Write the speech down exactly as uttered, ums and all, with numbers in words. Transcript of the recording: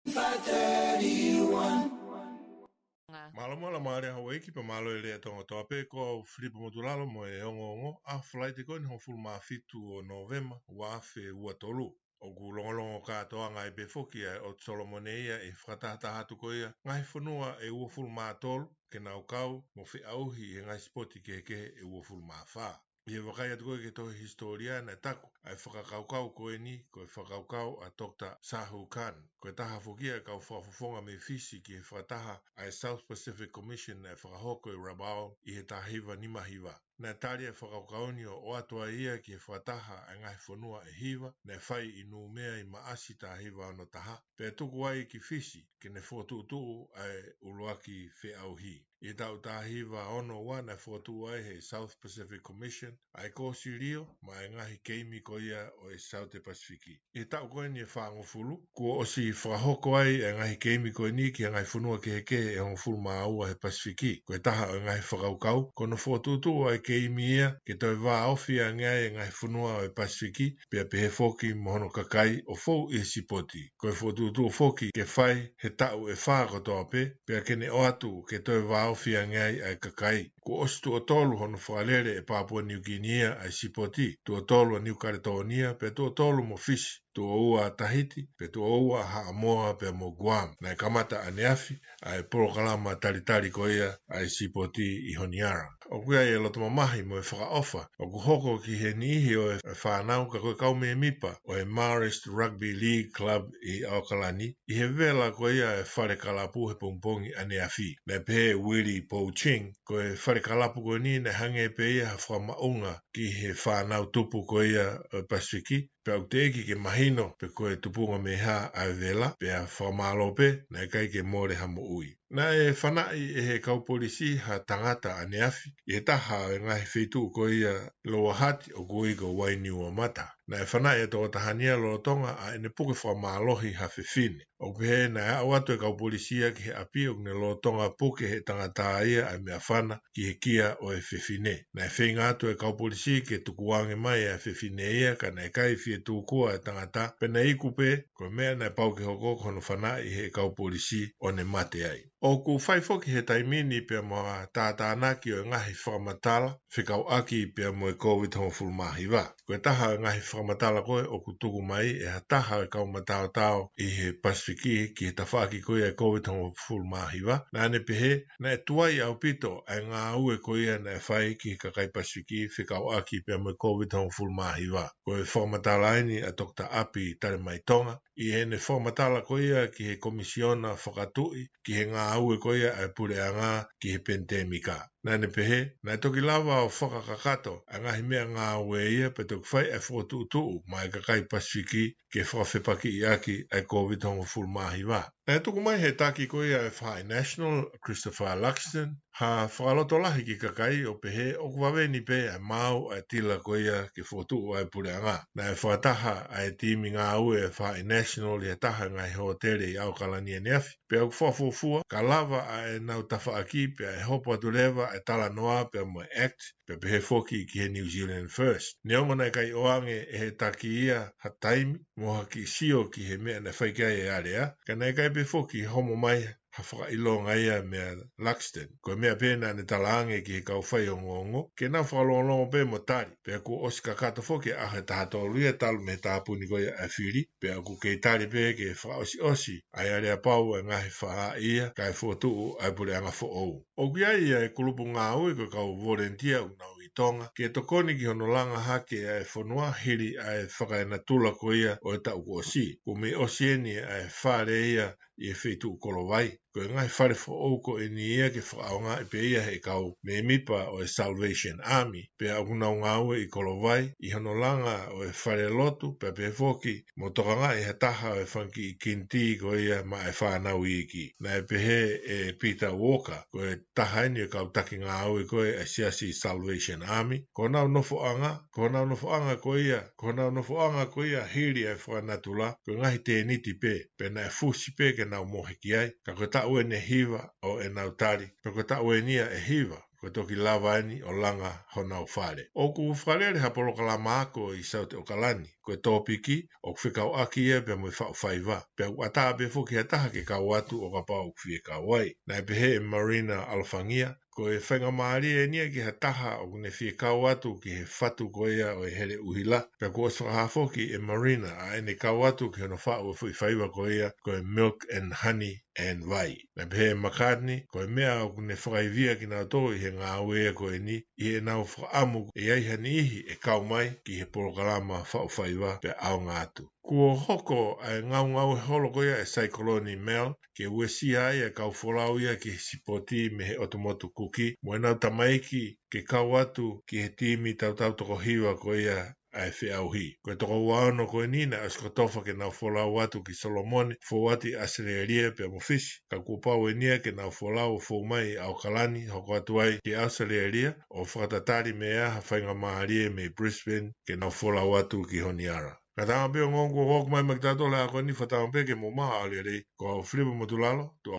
Five thirty-one. Mālō, mālō, mālō e houʻeiki pea mālō e lea Tonga kotoa pē, ko au Filipa Motulalo mo e ongoongo ʻa Falaite ko eni hongofulu mā fitu ʻo Nōvema, ua afe ua tolu. ʻOku longolongo kātoanga ai pē foki ʻa e ʻOtu Solomone ia ʻi he fakatahataha atu ko ia ngaahi fonua ʻe uofulu mā tolu ke nau kau mo feʻauhi ʻi he ngaahi sipoti kehekehe ʻe uofulu mā fā. ʻI he vakai atu ko ia ki he tohi hisitōlia naʻe taku ʻa e fakakaukau ko eni ko e fakakaukau ʻa Doctor Sahu Khan. Ko e taha foki ia e kau fakafofonga mei Fisi ki he fakataha ʻa e South Pacific Commission naʻe fakahoko ʻi Rabaul ʻi he taha hiva nima hiva. Naʻe tali e fakakaukau ni ʻo ʻoatu ai ia ki he fakataha ʻa e ngaahi fonua ʻe hiva naʻe fai ʻi Nūmea ʻi Maʻasi taha hiva ono taha, pea tuku ai ki Fisi ke ne fokotuʻutuʻu ʻa e ʻuluaki feʻauhi. ʻI he taʻu taha hiva ono ua naʻe fokotuʻu ai ʻe he South Pacific Commission ʻa e kōsilio maʻa e ngaahi keimi ko ia ʻo e Saute Pasifiki. ʻI he taʻu ko eni ʻe fāngofulu, kuo ʻosi fakahoko ai e ngaahi keimi ko eni ki he ngaahi fonua kehekehe ʻe hongofulu mā ua he Pasifiki. Ko e taha ʻo e ngaahi fakakaukau, ko hono fokotuʻutuʻu ʻa e keimi ia ke toe vāofi ange ai e ngaahi fonua ʻo e Pasifiki, pea pehē foki mo hono kakai ʻo fou ʻi he sipoti. Ko e fokotuʻutuʻu foki ke fai he taʻu ʻe fā kotoa pē, pea ke ne ʻoatu ke toe vāofi ange ai ʻa e kakai. Kuo ʻosi tuʻo tolu hono fakalele ʻe Papua Niukini ia ʻa e sipoti, tuʻo tolu ʻa Niu Kaletōnia, pea tuʻo tolu mo Fisi, tuʻo ua ʻa Tahiti, pea tuʻo ua ʻa Haʻamoa pea mo Guam. Naʻe kamata ʻaneafi ʻa e polokalama talitali ko ia ʻa e sipoti ʻi Honiara. ʻOku ʻi ai e loto mamahi mo e fakaʻofa ʻoku hoko ki he niʻihi ʻo e fānau ka ko e kau mēmipa ʻo e Marist Rugby League Club ʻi ʻAokalani, ʻi he vela ko ia e fale kalapu he pongipongi ʻaneafi. Naʻe pehē ʻe Willie Pouching, ko e fale kalapu ko eni naʻe hangē pē ia ha fakamaʻunga ki he fānau tupu ko ia ʻo e Pasifiki, pea ʻoku teʻeki ke mahino pe ko e tupunga mei hā ʻa e vela, pea fakamālō pē, naʻe ʻikai ke mole ha moʻui. Naʻe fanaʻi ʻe he kau polisi ha tangata ʻaneafi ʻi he taha ʻo e ngaahi feituʻu ko ia ʻi Lower Hutt ʻoku ui ko Wainiuamata. Naʻe fanaʻi e tokotaha ni ia lolotonga ʻa ʻene puke fakamālohi ha fefine. ʻOku pehē naʻe aʻu atu e kau polisi ia ki he ʻapi ʻoku ne lolotonga puke ʻe he tangata ia ʻa e meʻafana ki he kia ʻo e fefine. Naʻe feinga atu e kau polisi ke tukuange mai ʻa e fefine ia, ka naʻe ʻikai fie tūkua e tangata, pea naʻe iku pē, ko e meʻa naʻe pau ke hoko ko hono fanaʻi ʻe he kau polisi ʻo ne mate ai. ʻOku fai foki he taimi ni pea mo ha tātānaki ʻo e ngaahi fakamatala fekauʻaki pea mo e Kōviti hongofulu mā hiva. Ko e taha ʻo e ngaahi fakamatala ko ē ʻoku tuku mai ʻe ha taha ʻo e kau mataotao ʻi he Pasifiki ki he tafaʻaki ko ia e Kōviti hongofulu mā hiva, naʻa ne pehē naʻe tuai ʻaupito ʻa e ngāue ko ia naʻe fai ki he kakai Pasifiki fekauʻaki pea mo e Kōviti hongofulu mā hiva. Ko e fakamatala eni ʻa Doctor ʻApi Talemaitonga ʻi heʻene fakamatala ko ia ki he Komisiona Fakatuʻi ki he ngāue ko ia ʻa e puleʻanga ki he penitēmika. Naʻa ne pehē, naʻe toki lava ʻo fakakakato ʻa e ngaahi meʻangāue ia pea toki fai ʻa e fokotuʻutuʻu maʻa e kakai Pasifiki ke fakafepakiʻi ʻaki ʻa e Kōviti hongofulu mā hiva. Naʻe tuku mai ʻe he taki ko ia ʻa e Faʻahi National, Christopher Luxton, ha fakalotolahi ki he kakai ʻo pehē ʻoku vave ni pē ʻa e maau ʻa e tila ko ia ke fokotuʻu ʻa e puleʻanga. Naʻe fakataha ʻa e timi ngāue ʻa e Faʻahi National ʻi ha taha ʻo e ngaahi hōtele ʻi ʻAokalani ʻaneafi, pea ʻoku fakafuofua ka lava ʻa ʻenau tafaʻaki pea ʻe hopo atu leva ʻa e talanoa pea mo e act, pea pehē foki ki he New Zealand First. Neongo naʻe ʻikai ʻoange ʻe he taki ia ha taimi mo ha kiʻi sio ki he meʻa naʻe fai ki ai e alea, ka naʻe ʻikai pē foki homo mai ha fakaʻilonga ia meia Luxton. Ko e meʻa pē naʻa ne talaange ki he kau faiongoongo ke nau fakalongolongo pē mo tali, pea kuo ʻosi kakato foki ʻa e taha tolu ia talu mei he tāpuni ko ia ʻa e fili, pea ʻoku kei tali pē ke fakaʻosiʻosi ʻa e aleapau ʻa e ngaahi faʻahi ia kae fokotuʻu ʻa e puleʻanga foʻou. ʻOku ʻi ai ʻa e kulupu ngāue ko e kau volenitia ʻoku nau ʻi Tonga ke tokoni ki hono langa hake ʻa e fonua hili ʻa e fakaenatula ko ia ʻo e taʻu kuo ʻosi. Kuo mei ʻosi eni ʻa e fale ia ʻi he feituʻu Kolovai. Ko e ngaahi fale foʻou ko eni ia ke fakaʻaongaʻi pē ia ʻe he kau mēmipa ʻo e Salvation Army, pea ʻoku nau ngāue ʻi Kolovai ʻi hono langa ʻo e falelotu, pea pehē foki mo tokangaʻi ha taha ʻo e fanga kiʻi kinitī ko ia maʻa e fānau iiki. Naʻe pehē ʻe Peter Walker, ko e taha eni ʻo e kau taki ngāue ko ē ʻa e siasi Salvation Army, ko honau nofoʻanga, ko honau nofoʻanga ko ia, ko honau nofoʻanga ko ia hili ʻa e fakanatula, ko e ngaahi tēniti pē, pea naʻe fusi pē ke nau mohe ki ai, ka ko e taʻu eni ʻe hiva ʻo ʻenau tali, pea ko e taʻu eni ia ʻe hiva ko e toki lava eni ʻo langa honau fale. ʻOku fakalele ha polokalama ako ʻi South ʻAokalani, ko e tōpiki ʻoku fekauʻaki ia pea mo e faʻu faiva. Pea ʻoku ʻatā pē foki ha taha ke kau atu ʻo kapau ʻoku fie kau ai. Naʻe pehē ʻe Marina ʻAlofangia, ko e faingamālie eni ia ki ha taha ʻoku ne fie kau atu ki he fatu ko ia ʻo e hele ʻuhila. Pea kuo ʻosi fakahā foki ʻe Marina ʻa ʻene kau atu ki hono faʻu ʻo e foʻi faiva ko ia ko e Milk and Honey and Vai. Naʻe pehē ʻe McCartney, ko e meʻa ʻoku ne fakaivia kinautolu ʻi he ngāue ko eni, ʻi heʻenau fakaʻamu ʻe ʻi ai ha niʻihi ʻe kau mai ki he polokalama faʻu faiva pea ʻaonga atu. Kuo hoko ʻa e ngaungaue holo ko ia ʻa e Saikoloni Mel, ke uesia ai ʻa e kau folau ia ki he sipoti mei he ʻotu motu Kuki, mo ʻenau tamaiki ke kau atu ki he timi tautau toko hiva ko ia ʻa e feʻauhi. Ko e toko ua ono ko eni naʻe ʻosi kotofa ke nau folau atu ki Solomone, fou atu ʻi ʻAositelēlia pea mo Fisi, ka kuo pau eni ia ke nau folau ʻo fou mai ʻi ʻAokalani, hoko atu ai ki ʻAositelēlia, ʻo fakatatali mei ai ha faingamālie mei Brisbane ke nau folau atu ki Honiara. Ka tama pē ʻo ngong kuo ʻoku mai mai ki tautolu he ako ni, fakatama pē ke mou maʻu ʻa e lelei, ko au Filipa Motulalo, tuʻa